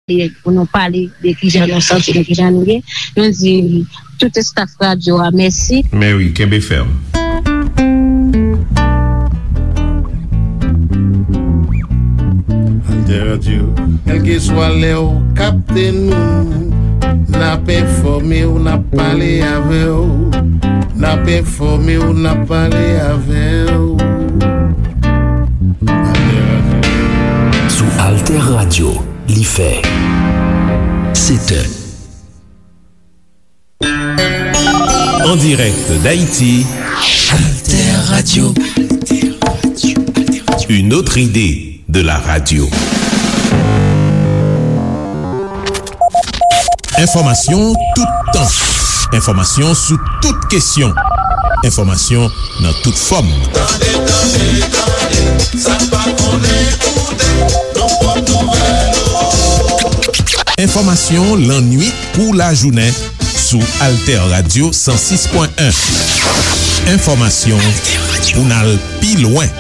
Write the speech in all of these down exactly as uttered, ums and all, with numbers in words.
e pou nou pale de kijan nou santi nou, kijan nou ye. Nou di tout staff radyo a mèsi. Men wi, kenbe fèm. Alter Radio. Kèlkeswa lè w kapte nou, n ap enfòme w, n ap pale avè w. N ap enfòme w, n ap pale avè w. Alter Radio. Sou Alter Radio, li fè sèt è. En direct d'Haïti, Alter Radio. Une autre idée de la radio. Enfòmasyon toutan. Enfòmasyon sou tout kesyon. Enfòmasyon nan tout fòm. Tande, tande, tande, sa n pa konnen koute, nou pot nouvèl yo. Enfòmasyon lannwit kou lajounen sou Alter Radio san sis pwen en. Enfòmasyon pou n al pi lwen.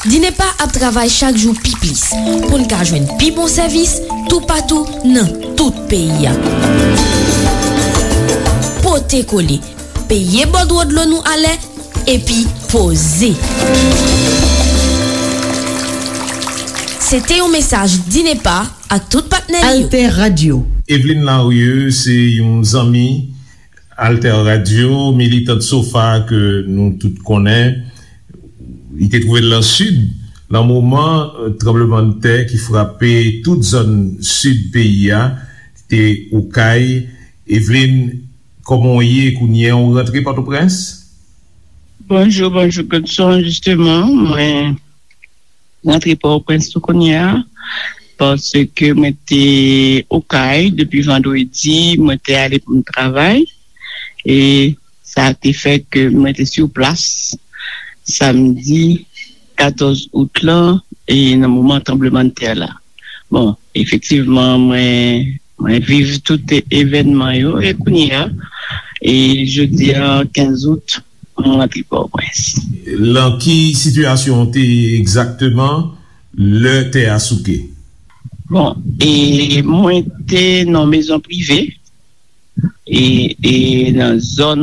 Dinepa ap travay chak jou pi plis pou n ka jwenn pi bon sèvis toupatou nan tout peyi a. Pote kole, peye bòdwo dlo nou alè, epi poze. Se te yon mesaj Dinepa ak tout patnè li yo. Alter Radio. Eveline Larieux se yon zanmi Alter Radio, militant SOFA ke nou tout konnen. Li te twouve l nan Sid, nan moman, eh, tranblemanntè ki frape tout zòn Sid peyi a, te Okay. Eveline, kòman w ye kounye a? Ou rantre Pòtoprens? Bonjou, bonjou, Godson. Jisteman, mwen rantre Pòtoprens tou kounye a, paske mwen te Okay depi vandredi, mwen te ale pou m travay, e sa te fè ke mwen te sou plas samdi katòz out lan, e nan moman tranblemanntè la. Bon, efektivman, mwen, mwen viv tout evènman yo, e kounye a, e jodi a, kenz out, mwen rantre Pòtoprens. Lan ki sitiyasyon w te ye egzakteman lè tè a souke? Bon, e mwen te nan mezon prive, e, e nan zòn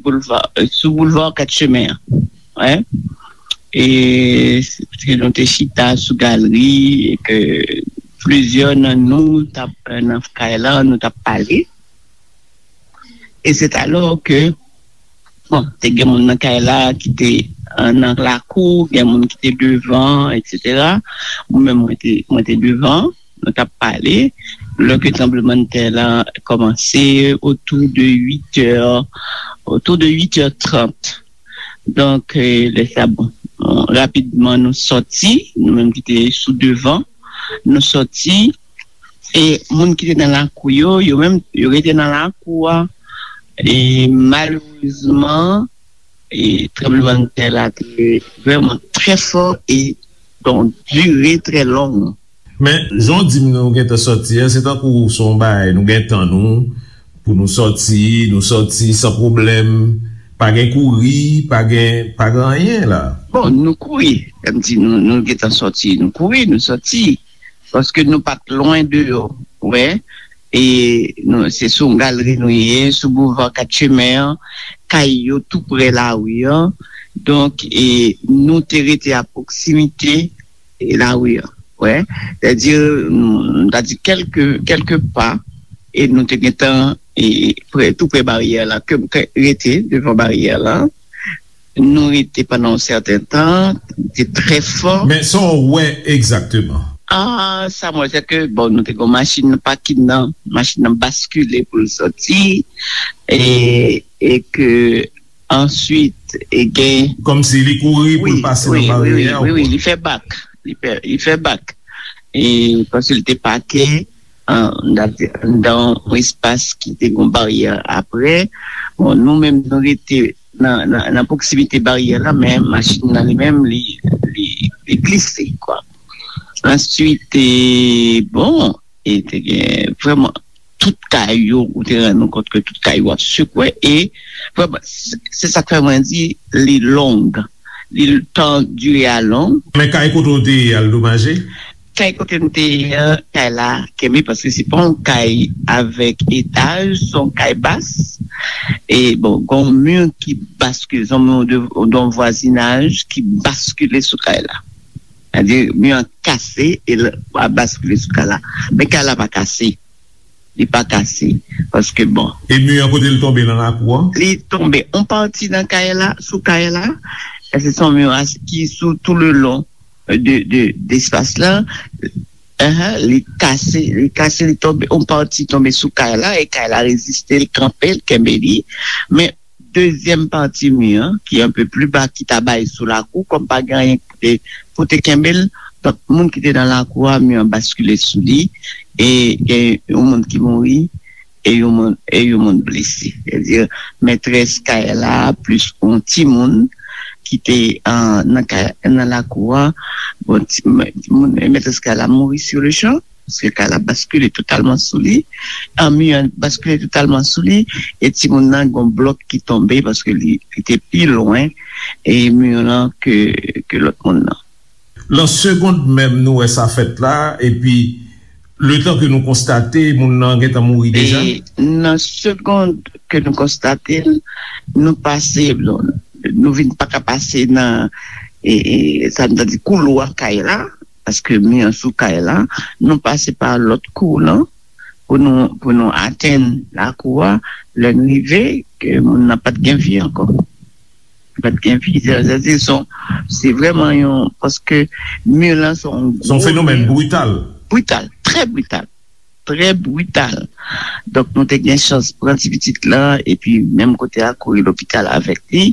boulva, sou boulva Kat Chemen an. Wi. E se, nou te chita sou galri, e ke plizyè nan nou t ap, nan kay la, nou t ap pale. E se talò ke, bon, te gen moun nan kay la ki te, eh, nan lakou, gen moun ki te devan, etsetera. Mwen menm, mwen te, mwen te devan, nou t ap pale. Lè ke tranblemanntè la kòmanse, otou de uit è, otou de uit è trant. Donk, eh, lè sa, bon, rapidman nou sòti, nou menm ki te sou devan, nou sòti, e moun ki te nan lakou yo, yo menm, yo rete nan lakou a. E malerezman, e tranblemanntè la te vrèman trè fò e donk dire trè long. Men, jan w di m nou gentan sòti a, se tankou se yon bagay, nou gen tan nou, pou nou sòti, nou sòti san pwoblèm, pa gen kouri, pa gen, pa gen anyen la. Bon, nou kouri, kòm di nou, nou gentan sòti, nou kouri, nou sòti, paske nou pa t lwen deyò, wè, e nou, se sou yon galri nou ye, sou boulva Kat Chemen an, kay yo tou prè lari an, donk, e nou te rete a pwoksimite e lari an. Wè, sètadi, nou, nou ta di kèlke, kèlke pa, e nou te gentan, e, prè, tou prè baryè la, ke m te rete devan baryè la. Nou rete pandan yon sèten tan, te trè fò. Men sa w wè egzakteman? Ah, sa m wè, se ke, bon, nou te gen yon machin nan pakin nan, machin nan baskile pou l sòti, e, e ke answit, e gen... Kòmsi li kouri pou l pase nan baryè a, wi, wi, wi, wi, li fè bak. Li fè, li fè bak. E paske li te pake, an, anndan yon espas ki te gen baryè aprè. Bon, nou menm, nou rete nan, nan, nan pwoksimite baryè la, men machin nan li menm, li, li, li glise, kwa. Answit, e, bon, e te gen vrèman tout kay yo, ou te rann ou kont ke tout kay yo ap sekwe, e vrèman, se, se sa k fè mwen di li long, li tan dire a long. Men kay kote w te ye a, l domaje? Kay kote m te ye an, kay la kenbe, paske se pa yon kay avèk etaj, se yon kay bas. E bon, gen yon mi ki baskile, se yon mi de, de yon vwazinaj ki baskile sou kay la. Sètadi, mi an kase e l a baskile sou kay la. Men kay la pa kase. Li pa kase. Paske bon. E mi an kote l tonbe nan lakou an? Li tonbe yon pati nan kay la, sou kay la. E se yon mi ki sou tou le lon de, de, de espas la. Ahan, li kase, li kase, li tonbe, yon pati tonbe sou kay la, e kay la reziste, l kanpe, l kenbe li. Men dezyèm pati mi an, ki anpe pli ba, ki ta bay sou lakou, kòm pa gen anyen pou te, pou te kenbe l, donk, moun ki te nan lakou a, mi an baskile sou li, e gen yon moun ki mouri, e yon moun, e yon moun blese. Sètadi, mètrès kay la, plis yon timoun ki te, ah, nan kay, nan lakou a, bon, ti, moun, mètrès kay la mouri sur le champ, paske kay la baskile totalman sou li, ah, mi an baskile totalman sou li, e timoun nan, gen yon blòk ki tonbe, paske li, li te pi lwen, e mi an ke, ke lòt moun nan. Nan segond menm, nou wè sa fèt la, epi letan ke nou konstate, moun nan gentan mouri deja? E nan segond ke nou konstate l, nou pase, nou vin pa ka pase nan, e, e, sa nou ta di koulwa kay la, paske mi an sou kay la, nou pase pa lòt kou lan, pou nou, pou nou atenn lakou a, lè n rive, ke moun nan pa t gen vi ankò. Pa t gen vi, sètadi se yon, se vrèman yon, paske mi lan se yon gwo mi. Se yon fenomèn brital. Brital, trè brital. Trè brital. Donk, nou te gen chans pran ti pitit lan, epi menm kote a, kouri lopital avèk li.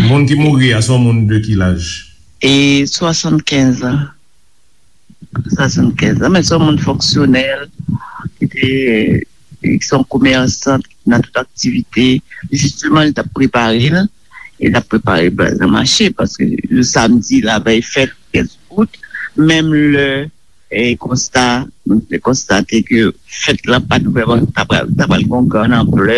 Moun ki mouri a, se yon moun de ki laj? E swasannkenz an. Swasannkenz an, men se yon moun fonksyonèl, ki te, ki se yon komèsan nan tout aktivite. Jisteman, li t ap prepare l, e l ap prepare bal nan mache, paske le samdi, lavèy fèt, kenz out, menm lè, e konsta, nou te konstate ke fèt la pa t vrèman, ta pral, ta pral gen yon gran anplè,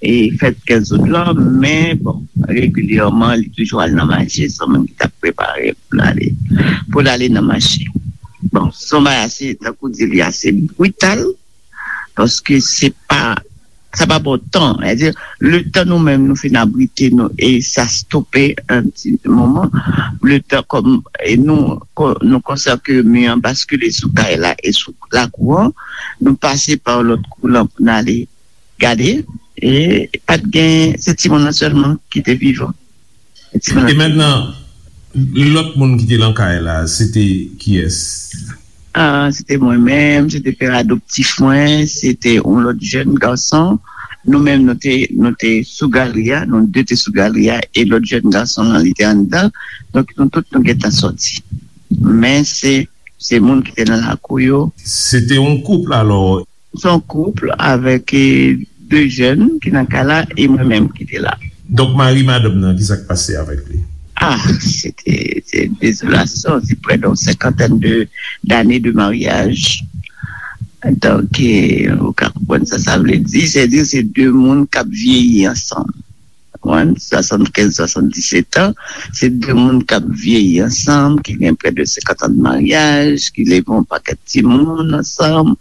e fèt kenz out lan, men, bon, regilyèman, li toujou al nan mache, se yon moun ki t ap prepare pou l ale, pou l ale nan mache. Bon, se yon bagay ase, tankou di, li ase brital, paske se pa, sa pa pran tan. Sètadi, letan nou menm nou fin abrite nou e sa stope yon ti moman, letan kòm, e nou, ko-, nou konsa ke mi an baskile sou kay la e sou lakou an, nou pase pa lòt kou lan pou n ale gade, e pa t gen, se timoun nan sèlman ki te vivan. E timoun nan. E mentnan, lòt moun ki te lan kay la, se te kiyès? Ah, se te mwen menm, se te pè adoptif mwen, se te yon lòt jèn gason. Nou menm, nou te, nou te sou galri a, nou de te sou galri a, e lòt jèn gason lan, li te anndan. Donk, nou tout, nou gentan sòti. Men se, se moun ki te nan lakou yo. Se te yon koup, alò? Se yon koup avèk, e, de jèn ki nan kay la e mwen menm ki te la. Donk, mari madanm nan, ki sa k pase avèk li? Ah, se te, se dezolasyon, se prè de yon senkantèn de, dane de maryaj. Donk, e, ou ka konprann sa sa vle di, sètadi se de moun k ap vyeyi ansanm. Konprann? Swasannkenz, swasanndisèt an, se de moun k ap vyeyi ansanm, ki gen prè de senkant an de maryaj, ki leve yon pakèt timoun ansanm.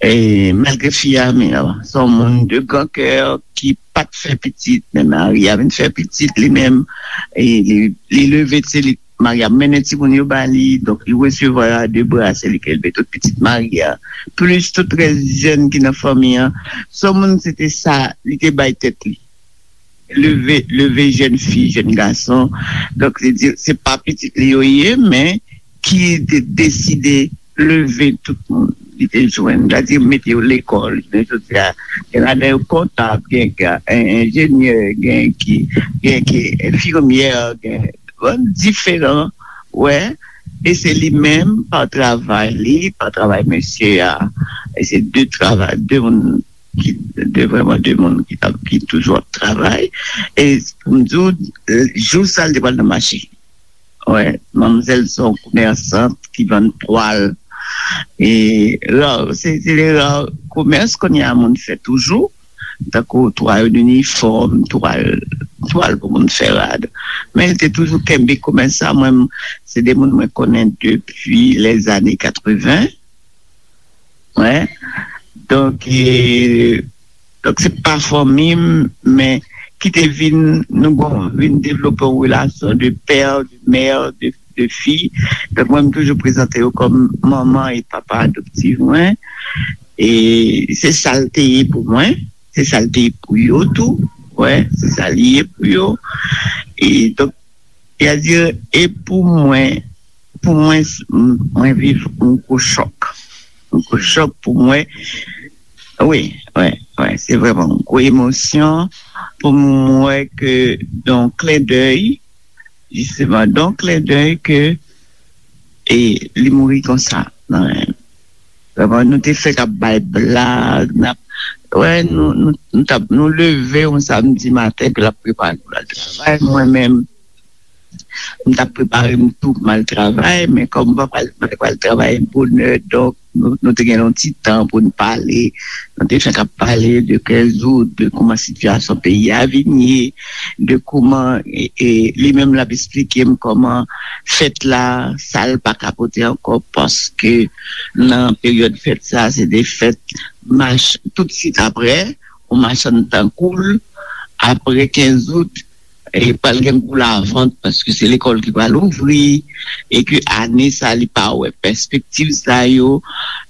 E malgre fi a, men, se yon moun de gran kè ki pa t fè pitit, men mari a vin fè pitit li menm. E li, li leve, se li, mari a mennen timoun yo ba li, donk li resevwa yo a de bra, se li ki elve tout pitit mari a. Plis tout rès jèn ki nan fanmi an. Se yon moun, se te sa, li te bay tèt li. Leve, leve jèn fi, jèn gason. Donk, se di, se pa pitit li yo ye, men ki te deside leve tout moun. Li te jwenn, sètadi mete yo lekòl. Men jodi a, gen ladan yo kontab, gen, gen en-, enjenyè, gen ki, gen ki enfimyè, gen bon, diferan, wè. E se li menm, pa travay li, pa travay mesye a. E se de travay, de moun ki, de vrèman de moun ki t ap, ki toujou ap travay. E pou m di w, jou sa l te pral nan mache. Wè, manmzèl se yon komèsant ki vann twal. E ra, se, se de ra komès kounye a moun fè toujou. Tankou twal inifòm, twal, twal pou moun fè rad. Men li te toujou kenbe komès sa. Mwen, se de moun mwen konnen depi lèzane katreven. Wè. Donk, e, donk se pa fanmi m, men ki te vin, nou bon, vin devlope yon relasyon de pè, de mè, de, de fi. Donk, mwen, m toujou prezante yo kòm manman e papa adoptif mwen. E se sa l te ye pou mwen. Se sa l te ye pou yo tou. Wè, se sa l ye pou yo. E donk, sètadi, e pou mwen, pou mwen, s- m- mwen viv yon gwo chòk. Yon gwo chòk pou mwen. Wi, wi, wi, se vrèman yon gwo emosyon pou mwen wè ke, dan yon klen dèy, jisteman, dan yon klen dèy ke, e li mouri konsa. Nan men m. Vrèman, nou te fèk ap bay blag, n ap, wè, nou, nou, nou t ap, nou leve yon samdi maten, epi l ap prepare pou l al travay. Mwen menm, m t ap prepare m tou pou m al travay, men kòm m pa pral, m pa t pral travay bonè, donk, nou, nou te gen yon ti tan pou n pale. Nou te fèk ap pale de kenz out, de kòman sitiyasyon peyi a vin ye, de kòman, e, e, li menm l ap esplike m kòman fèt la, sa l pa ka pote ankò, paske nan peryòd fèt sa, se de fèt mach, toutswit apre, yon machann tan koul, apre kenz out, e pral gen gwo lavant, paske se lekòl ki pral ouvri, e ke ane sa, li pa wè pèspektiv sa yo.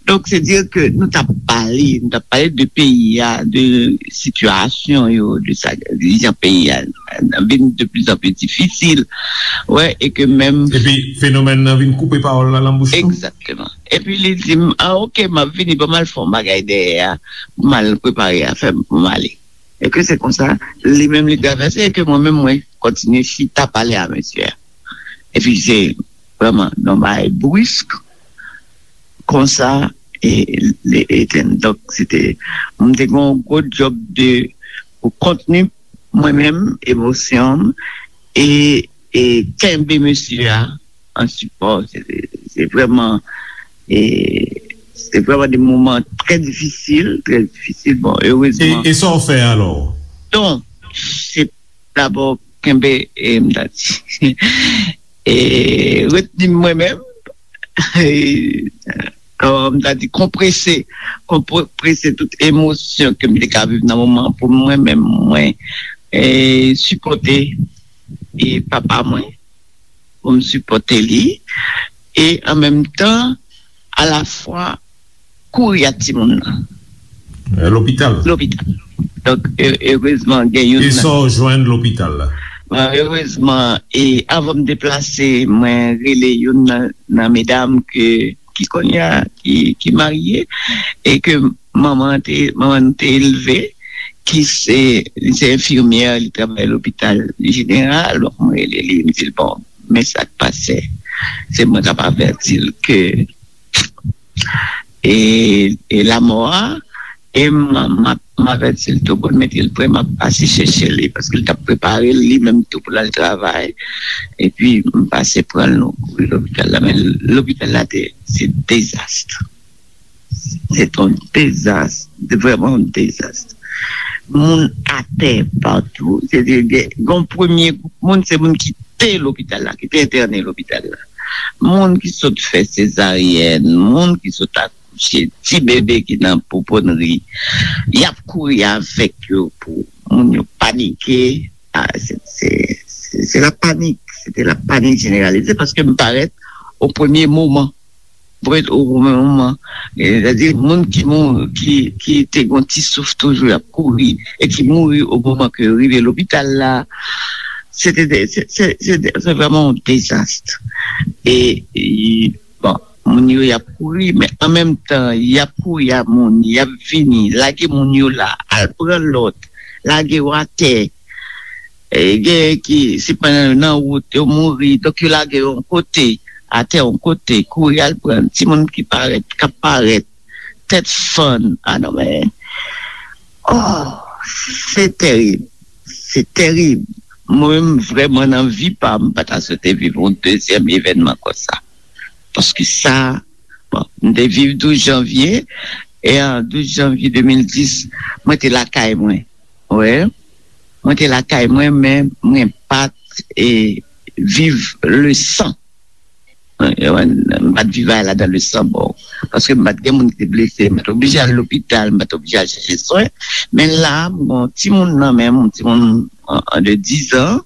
Donk, se di ke nou t ap pale, nou t ap pale de peyi a, de sitiyasyon yo, de sa, de jan peyi a vin de pli an pli difisil. Wè, e ke menm Epi fenomèn nan vin koupe pawòl la nan bouch nou. Egzakteman. Epi li di m, "Ah, oke, m ap vini, ban m al fè yon bagay dèyè a, pou m al prepare afè m, pou m ale." E ke se konsa, li menm li travèse, e ke mwen menm, mwen kontinye chita pale a mesye a. Epi se vrèman yon bagay brisk, konsa, e, li etenn. Donk, se te, mwen te gen yon gwo djòb de, pou kontni mwen menm, emosyon m, e, e kenbe mesye a an sipò. Se, se vrèman, e, se vrèman de moman trè difisil, trè difisil. Bon, E, erezman. E sa w fè alò? Donk, se dabò kenbe, e, m ta di, e, retni mwen menm, e, kòman m ta di, konprese, konprese tout emosyon ke m te ka viv nan moman an pou mwen menm, mwen, e, sipòte, e, papa mwen, pou m sipòte li, e an menm tan, alafwa, kouri ak timoun nan. E, lopital. Lopital. Donk, e, erezman, gen youn E nan sa w jwenn lopital la? Bon, erezman, e avan m deplase, mwen rele youn nan, nan medam ke, ki kounye a, ki, ki marye, e ke manman te, manman nou te elve, ki se, li se enfimyè, li travay lopital jeneral, donk mwen rele li, m di l, "Bon, men sa k pase, se mwen k ap avèti l ke e, e lamò a, e m, m ap, m avèti l tou pou l mete l prè, m ap pase chèche li, paske l t ap prepare l li menm tou pou l al travay, epi m pase pran l, nou kouri lopital la, men lopital la te, se dezas. Se te yon dezas, te vrèman yon dezas. Moun atè patou, se te gen, gen yon premye gwoup moun, se moun ki te lopital la, ki te entène lopital la. Moun ki sot fè sezaryèn, moun ki sot akouche, ti bebe ki nan pouponnri, y ap kouri avèk yo pou moun yo panike. A, se, se, se, se la panik, se te la panik jeneralize paske m parèt o premye moman. Parèt o premye moman. Sètadi, moun ki mouri, ki, ki te gen ti souf toujou, y ap kouri, e ki mouri o moman ke yo rive lopital la, se te, se, se, se, se vrèman yon dezas. E, e, bon, moun yo, y ap kouri, men an menm tan, y ap kouri a moun, y ap vini, lage moun yo la, al pran lòt, lage yo atè. E, gen ki, se pandan yo nan wout, yo mouri, donk yo lage yo yon kote, atè yon kote, kouri al pran timoun ki parèt, k ap parèt, tèt fann, a non, men, oh, se tèrib, se tèrib. Mwen menm, vrèman, nan vi pa m, m pa ta swete viv yon dezyèm evènman konsa. Paske sa, bon, m te viv douz janvye, e an douz janvye de mil dis, mwen te lakay mwen. Wè. Mwen te lakay mwen, men mwen pa t e, viv le sang. M pa t viv ladan le sang, bon. Paske m pa t gen moun ki te blese, m pa t oblije al lopital, m pa t oblije al chèche swen. Men la, m gen yon timoun nan men m, yon timoun an, an de diz an,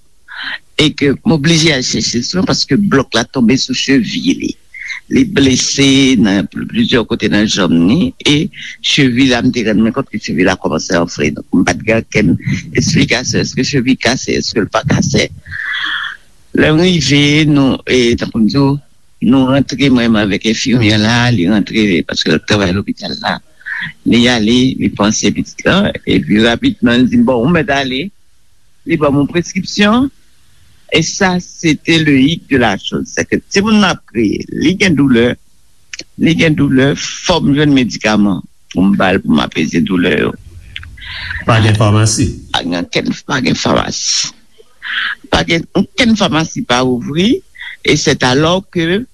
e ke m oblije al chèche swen paske blòk la tonbe sou chevi li. Li blese nan plizyè kote nan janm ni, e chevi la, m te rann mwen kont ke chevi la kòmanse anfle. Donk, m pa t gen okenn esplikasyon. Èske chevi kase? Èske l pa kase? Lè m rive, nou, e, tankou m di w, nou rantre, mwen menm avèk enfimyè la, li rantre, paske l ap travay lopital la. Li ale, li panse pitit la, epi rapidman, li di m, "Bon, ou mèt ale." Li ban m yon preskripsyon, e sa, se te le hic de la chose. Se ke timoun nan ap kriye, li gen doulè, li gen doulè, fò m jwenn medikaman pou m ba l, pou m apeze doulè yo. Pa gen famasi. Pa gen okenn, pa gen famasi. Pa gen okenn famasi pa ouvri, e c'est alors que,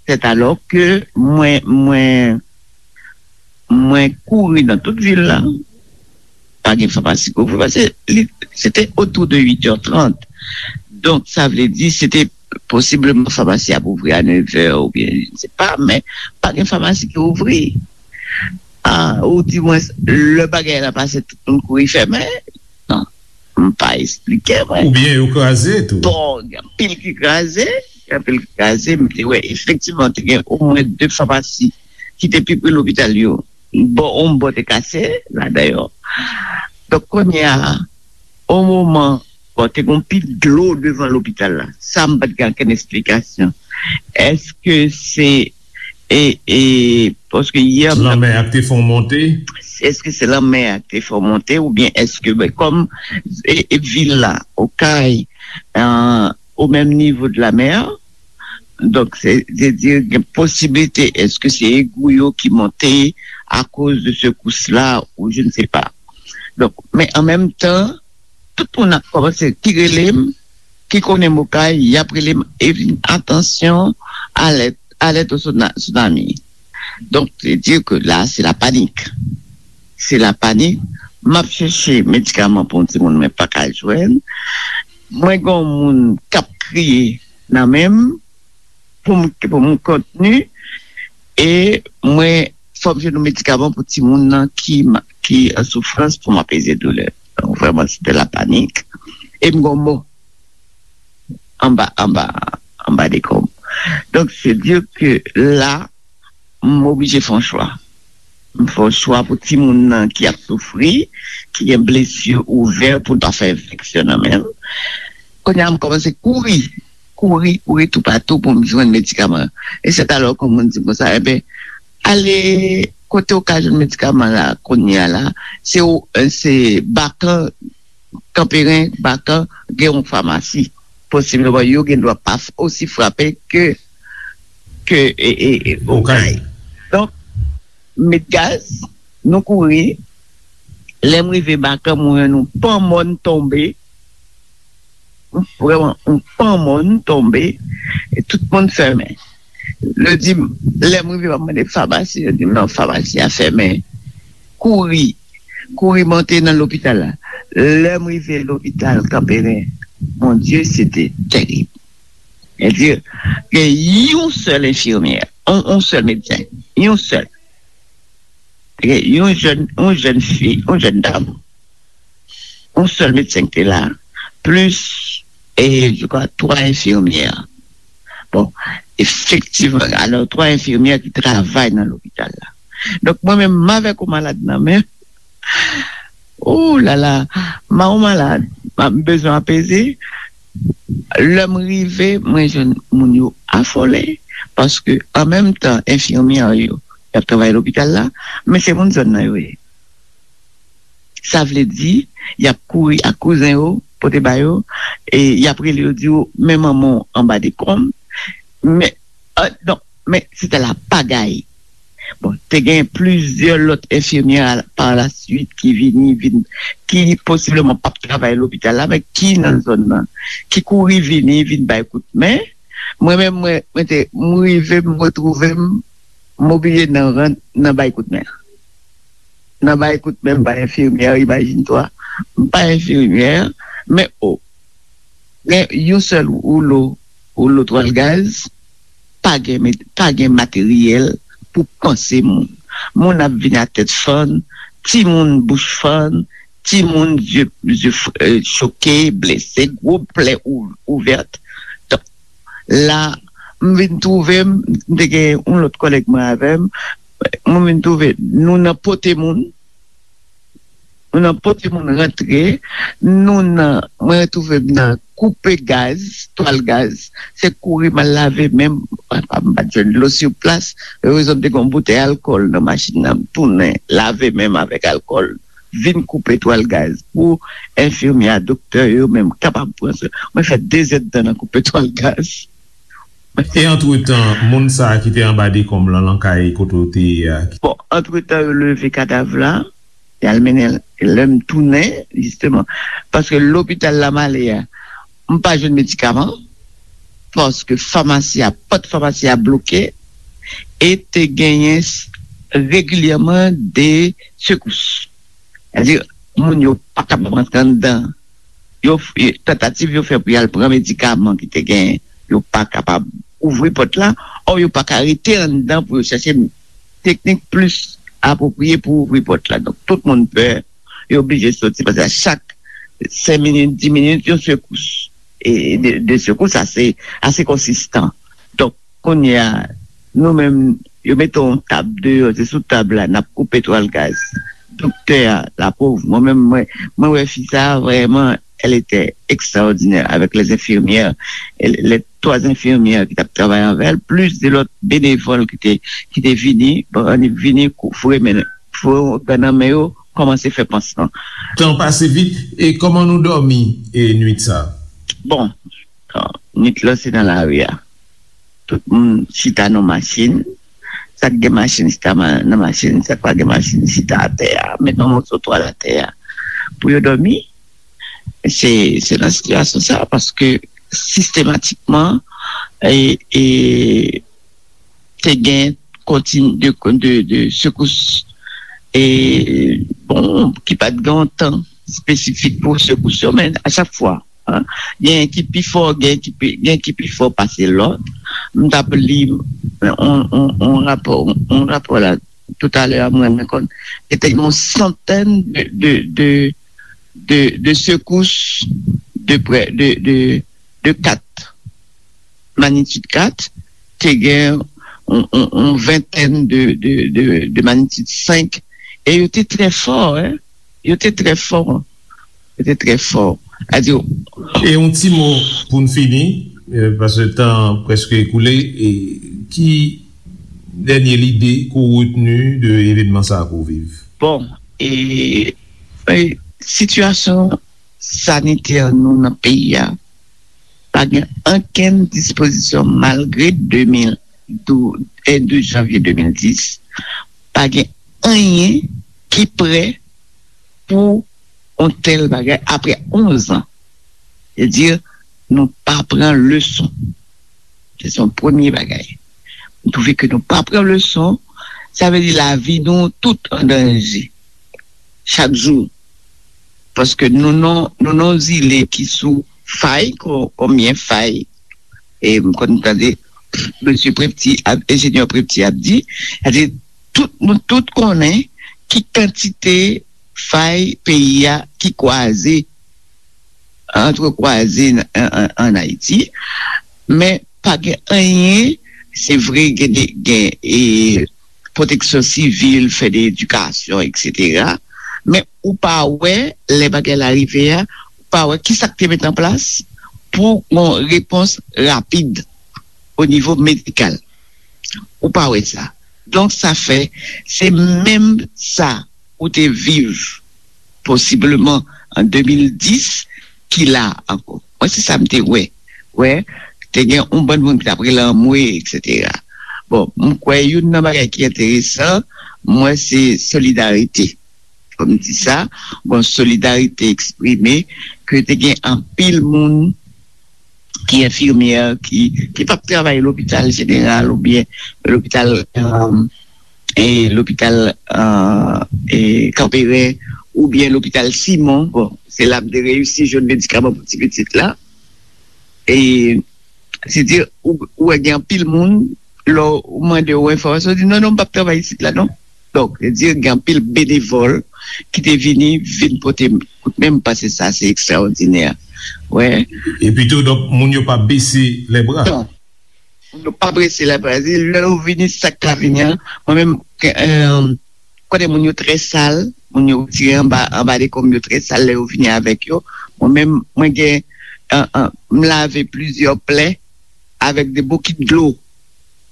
c'est alors que mwen, mwen, mwen kouri nan tout vil la. Pa gen famasi ki ouvri, paske li, se te otou de uit è trant. Donk, sa vle di, se te posibleman famasi ap ouvri a nèv è oubyen, je ne sais pas, men pa gen famasi ki ouvri. A, ou di mwen, lè bagay la pase, tout moun kouri fèmen. Non, m pa esplike mwen. Oubyen yo kraze tou. Bon, gen anpil ki kraze, gen anpil ki kraze, m te wè efektivman te gen omwen de famasi ki te pi pre lopital yo. Bon, yon bò te kase, la dayè. Donk, kounye a, o moman, bon, te gen yon pi dlo devan lopital la. Sa, m pa t gen okenn esplikasyon. Èske se, e, e, paske yè m t ap Lanmè a te fè w monte? Èske se lanmè a ki te fè w monte, oubyen èske, ben, kòm, e, e, vil la, Okay, e, o menm nivo de la mè, donk, se, se di, gen posiblite, èske se egou yo ki monte akoz de sekous la, ou je ne sais pas. Donk, men an menm tan, tout moun ap kòmanse ki rele m, ki konnen m Okay, y ap rele m, e vin, "Atansyon, alèt, alèt o sona-, tsunami." Donk, se di ke la, se la panik. Se la panik. M ap chèche medikaman pou yon timoun, men pa ka jwenn. Mwen gen yon moun k ap kriye nan men m pou m, pou m kontni. E mwen, fò m jwenn yon medikaman pou timoun nan ki, ki an soufrans pou m apeze doulè. Donk, vrèman, se te la panik. E m gen yon mò anba, anba, anba dekonb. Donk, se di ke la, m oblije fè yon chwa. M fè yon chwa pou timoun nan ki ap soufri, ki gen blesi ouvè pou l pa fè enfeksyon nan men l. Kounye a, m kòmanse kouri, kouri, kouri toupatou pou m jwenn medikaman. E se alò ke moun di m konsa, "Enben, ale kote w ka jwenn medikaman la, kounye a la, se, se Bakan, Kanperen, Bakan, gen yon famasi." Posibleman, yo gen dwa pa f-, osi frape ke, ke, e, e, e, Okay. Okay. Donk, m met gaz, nou kouri. Lè m rive Bakan, mwen, yon pan mòn tonbe. Vrèman, yon pan mòn tonbe. E tout moun fèmen. Yo di m, lè m rive, m ap mande famasi, yo di m, "Non, famasi a fèmen." Kouri, kouri monte nan lopital la. Lè m rive lopital Kanperen, mon Dieu, se te tèrib. Sètadi, gen yon sèl enfimyè, yon, yon sèl medsen, yon sèl. Gen yon jèn, yon jèn fi, yon jèn dam, yon sèl medsen ki te la, plis, e, je crois, twa enfimyè. Bon, efektivman, alò, twa enfimyè ki travay nan lopital la. Donk, mwen menm, m avèk yon malad nan men, oh la la, m a yon malad, m bezwen apeze. Lè m rive, mwen jwenn moun yo afole, paske an menm tan, enfimyè yo, y ap travay lopital la, men se moun zòn nan yo ye. Sa vle di, y ap kouri ak kouzen yo, pote ba yo, e y ap rele yo, di yo, "Men manman w anba dekonb." Men, ah, non, men se te la pagay. Bon, te gen plizyè lòt enfimyè a, pa la swit ki vini, vin, ki posibleman p ap travay lopital la, men ki nan zòn nan, ki kouri vini, vin bay kout men. Mwen menm, mwen, mwen te, m rive, m retwouve m, m oblije nan rant, nan bay kout men. Nan bay kout men, m pa enfimyè, imajine twa. M pa enfimyè, Men o, gen yon sèl woulo, woulo twal gaz, pa gen, pa gen materyèl pou panse moun. Moun ap vin a tèt fann, timoun bouch fann, timoun zye, zye choke, blese, gwo plè ouvè. Donk, la, m vin twouve m, m te gen yon lòt kòlèg mwen avè m, mwen vin twouve nou nan pote moun, nou nan pote moun rantre, nou nan, mwen retwouve m nan koupe gaz, twal gaz, se kouri m al lave men m, m pa t jwenn dlo sou plas, erezman m te gen yon boutèy alkòl nan machin nan, m tounen lave men m avèk alkòl, vin koupe twal gaz pou enfimyè a, doktè yo menm kapab pran swen. Mwen fè dezèdtan nan koupe twal gaz. E antretan, moun sa a ki te anba dekonm lan nan kay kote w te ye a? Bon, antretan, yo leve kadav la, y al mennen l, lè m tounen, jisteman, paske lopital la m ale a, m pa jwenn medikaman, paske famasi a, pòt famasi a bloke, e te genyen regilyèman de sekous. Sètadi, moun yo pa kapab rantre anndan. Yo, tantativ yo fè pou y al pran medikaman ki te genyen, yo pa kapab ouvri pòt la, ò yo pa ka rete anndan pou yo chèche teknik plis apwopriye pou ouvri pòt la. Donk, tout moun pè, yo oblije soti, paske a chak senk minit, dis minit, yon sekous. E de, de sekous ase, ase konsistan. Donk, kounye a, nou menm, yo mete yon tab deyò, se sou tab la, n ap koupe twal gaz. Doktè a, lapòv, mwen menm, mwen, mwen wè fi sa a, vrèman, elle était extraordinaire avec les infirmières, les trois infirmières ki t ap travay avè l, plis de lòt benevòl ki te, ki te vini, bon, vini foure men, foure gad nan men yo, kòmanse fè pansman. Tan pase vit, e kòman nou dòmi e nwit sa a? Bon, nwit lan se nan lari a. Tout moun chita nan machin. Sa k gen machin chita nan machin, sa k pa gen machin chita atè a. Met yon moso twal atè a pou yo dòmi. Se se nan sitiyasyon sa a, paske sistematikman e, e te gen kontiny de, de, de sekous e, bon, ki pa t gen yon tan espesifik pou sekous yo, men a chak fwa, genyen ki pi fò, genyen ki pi, genyen ki pi fò pase lòt. M t ap li yon, yon, yon rapò, yon rapò la toutalè a, m rann mwen kont, se te yon santèn de, de, de, de, de sekous de prè, de, de, de kat, manitid kat, te gen yon, yon, yon ventèn de, de, de, de manitid senk, e yo te trè fò, en. Yo te trè fò. Yo te trè fò. Sètadi, E yon ti mo pou n fini, paske tan an prèske ekoule, e ki dènye lide ke w retni de evènman sa a ke w viv? Bon, e, e sitiyasyon sanitè nou nan peyi a, pa gen okenn dispozisyon malgre de mil douz, e douz janvye de mil dis, pa gen anyen ki prè pou yon tèl bagay apre onz an. Sètadi, nou pa pran leson. Se yon premye bagay. M twouve ke nou pa pran leson, sa vle di lavi nou tout an danje. Chak jou. Paske nou nan, nou nan zile ki sou fay, kon, konbyen fay, e m konn tande mesye Prepti, enjenyè Prepti ap di, sètadi, tout, nou tout konnen ki kantite fay peyi a ki kwaze, antrekwaze an Ayiti, men pa gen anyen, se vre, gen, gen e, pwoteksyon sivil, fè de edikasyon, eksetera. Men ou pa wè, lè bagay la rive a, ou pa wè kisa k te met an plas pou yon repons rapid o nivo medikal. Ou pa wè sa. Donk, sa fè, se menm sa ou te viv posibleman an de mil dis ki la ankò. Mwen, se sa m te wè. Wè, te gen yon bann moun ki t ap rele anmwe, eksetera. Bon, m kwè youn nan bagay ki enteresan, m wè se solidarite. Fò m di sa, bon, solidarite eksprime ke te gen anpil moun ki enfimyè, ki, ki p ap travay lopital jeneral oubyen lopital, e lopital, e Kanperen oubyen lopital Simon, bon, se la m te reyisi jwenn medikaman pou ti pitit la. E, se di, ou, ou wè gen anpil moun, lè w mande yo enfòmasyon, yo di, "Non, non, m p ap travay isit la, non." Donk, se di, gen anpil benevòl ki te vini, vin pote kout men, m panse sa, se ekstraòdinè. Wè. Epi tou, donk, moun yo pa bese lèbra. Non. Moun yo pa bese lèbra. Se lè yo vini, sa k ka vini an. Mwen menm, ke, euh, kote moun yo trè sal, moun yo retire anba, anba dekonm yo trè sal lè yo vini avèk yo. Mwen menm, mwen gen, euh, euh, m lave plizyè plè avèk de bokit dlo.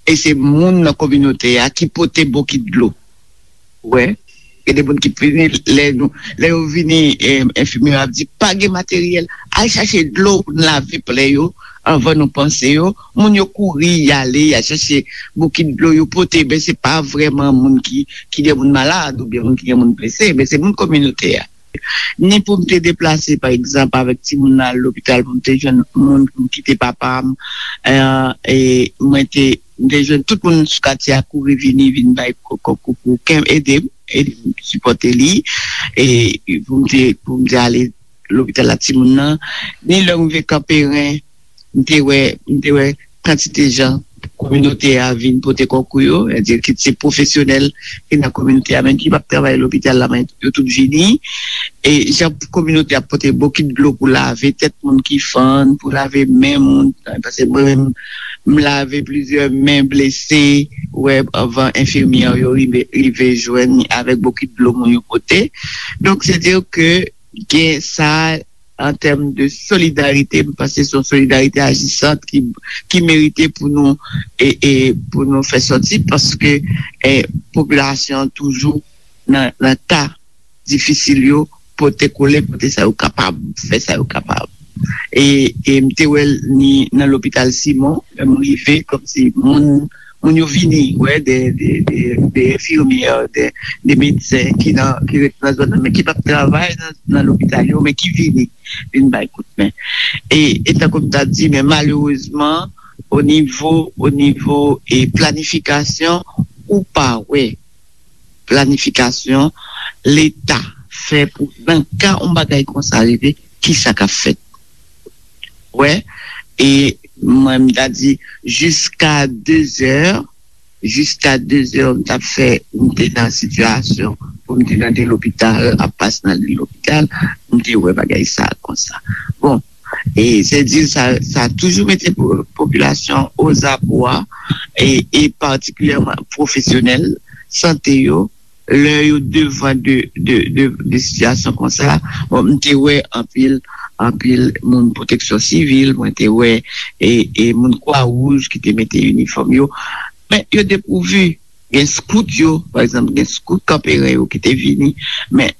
E se moun nan kominote a ki pote bokit dlo. Wè. Gen de moun ki vini, lè nou, lè yo vini, eh, enfimyè ap di, "Pa gen materyèl, al chache dlo pou n lave plè yo anvan nou panse yo." Moun yo kouri, y ale, y al chache bokit dlo, yo pote, men se pa vrèman moun ki, ki gen moun malad oubyen moun ki gen moun blese, men se moun kominote a. Ni pou m te deplase, pa egzanp, avèk timoun nan al lopital, pou m te jwenn moun pou m kite papa m, eh, e mwen te, m te jwenn tout moun sou katye a kouri vini, vin bay ko-, ko-, ko-, ko-, ede m, ede m sipòte li, e pou m te, pou m te ale lopital la timoun nan, ni lè m rive Kanperen, m te wè, m te wè kantite jan kominote a vin pote konkou yo, sètadi kit se pwofesyonèl ki nan kominote a, menm ki p ap travay lopital la, men yo tout vini. E jan kominote a pote bokit dlo pou lave tèt moun ki fann, pou lave men moun, paske mwen menm, m lave plizyè men blese, wè, anvan enfimyè yo rive, rive jwenn avèk bokit dlo moun yo pote. Donk, se di ke gen sa an tèm de solidarite, m panse se yon solidarite ajisant ki, ki merite pou nou, e, e pou nou fè sòti, paske, e, popilasyon an toujou nan, nan ka difisil yo, pote kole, pote sa yo kapab, fè sa yo kapab. E, e m te wè l ni nan lopital Simon, lè m rive, kòmsi moun, moun yo vini, wè, de, de, de, de enfimyè, de, de medsen ki nan, ki ret nan zòn nan, men ki p ap travay nan, nan lopital yo, men ki vini, vin bay kout men. E, e tankou m ta di, men malerezman, o nivo, o nivo, e planifikasyon, ou pa wè planifikasyon Leta fè pou, nan ka yon bagay konsa rive, kisa k ap fèt? Wè, e mwen, m ta di, jiska dezè, jiska dezè, m t ap fè, m te nan sitiyasyon pou m te nan de lopital, ap pase nan de lopital, m te wè bagay sa konsa. Bon, e se di sa, sa toujou mete po-, popilasyon ozabwa, e, e patikilyèman pwofesyonèl sante yo, lè yo devan de, de, de, de sitiyasyon konsa, bon, m te wè anpil, anpil moun pwoteksyon sivil, mwen te wè, e, e moun Kwa Wouj ki te mete inifòm yo, men yo depouvi. Gen skout yo, pa egzanp, gen skout Kanperen yo ki te vini, men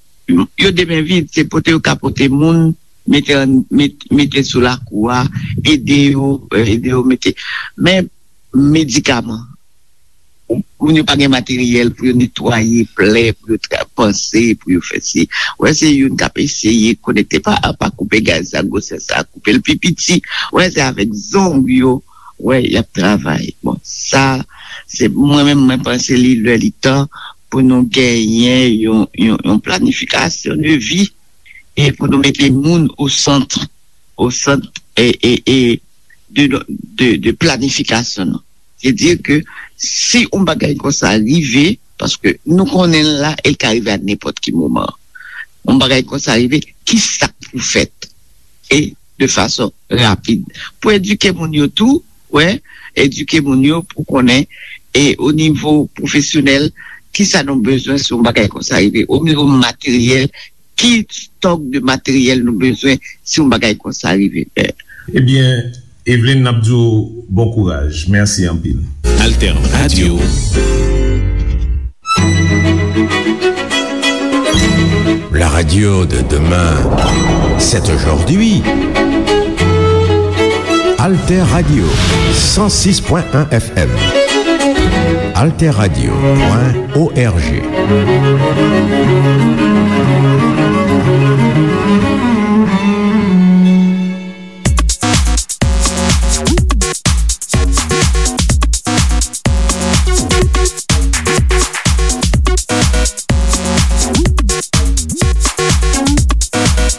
yo de men vid, se pote yo ka pote moun, mete an, met-, mete sou lakou a, ede yo, ede yo mete. Men medikaman, moun yo pa gen materyèl pou yo netwaye plè, pou yo tra-, panse, pou yo fè si. Wè, se youn k ap eseye konekte pa, pa koupe gaz sa, gwosè sa, koupe l pi piti. Wè, se avèk zong yo, wè, y ap travay. Bon, sa, se mwen menm, mwen panse li lè li tan pou nou genyen yon, yon, yon planifikasyon de vi e pou nou mete moun o sant, o sant, e, e, e de, de, de planifikasyon nou. Se di ke si yon bagay konsa rive, paske nou konnen l la, e l ka rive a nenpòt ki moman. Yon bagay konsa rive, ki sa k pou fèt? E de fason rapid. Pou edike moun yo tou, wè, edike moun yo pou konnen, e o nivo pwofesyonèl, ki sa nou bezwen si yon bagay konsa rive? O nivo materyèl, ki stòk de materyèl nou bezwen si yon bagay konsa rive? Ebyen, Eveline, n ap di w bon kouraj. Mèsi anpil. Alter Radio. La radio de demain, c'est aujourd'hui. Alter Radio, cent six point un F M. Alter Radio point O R G.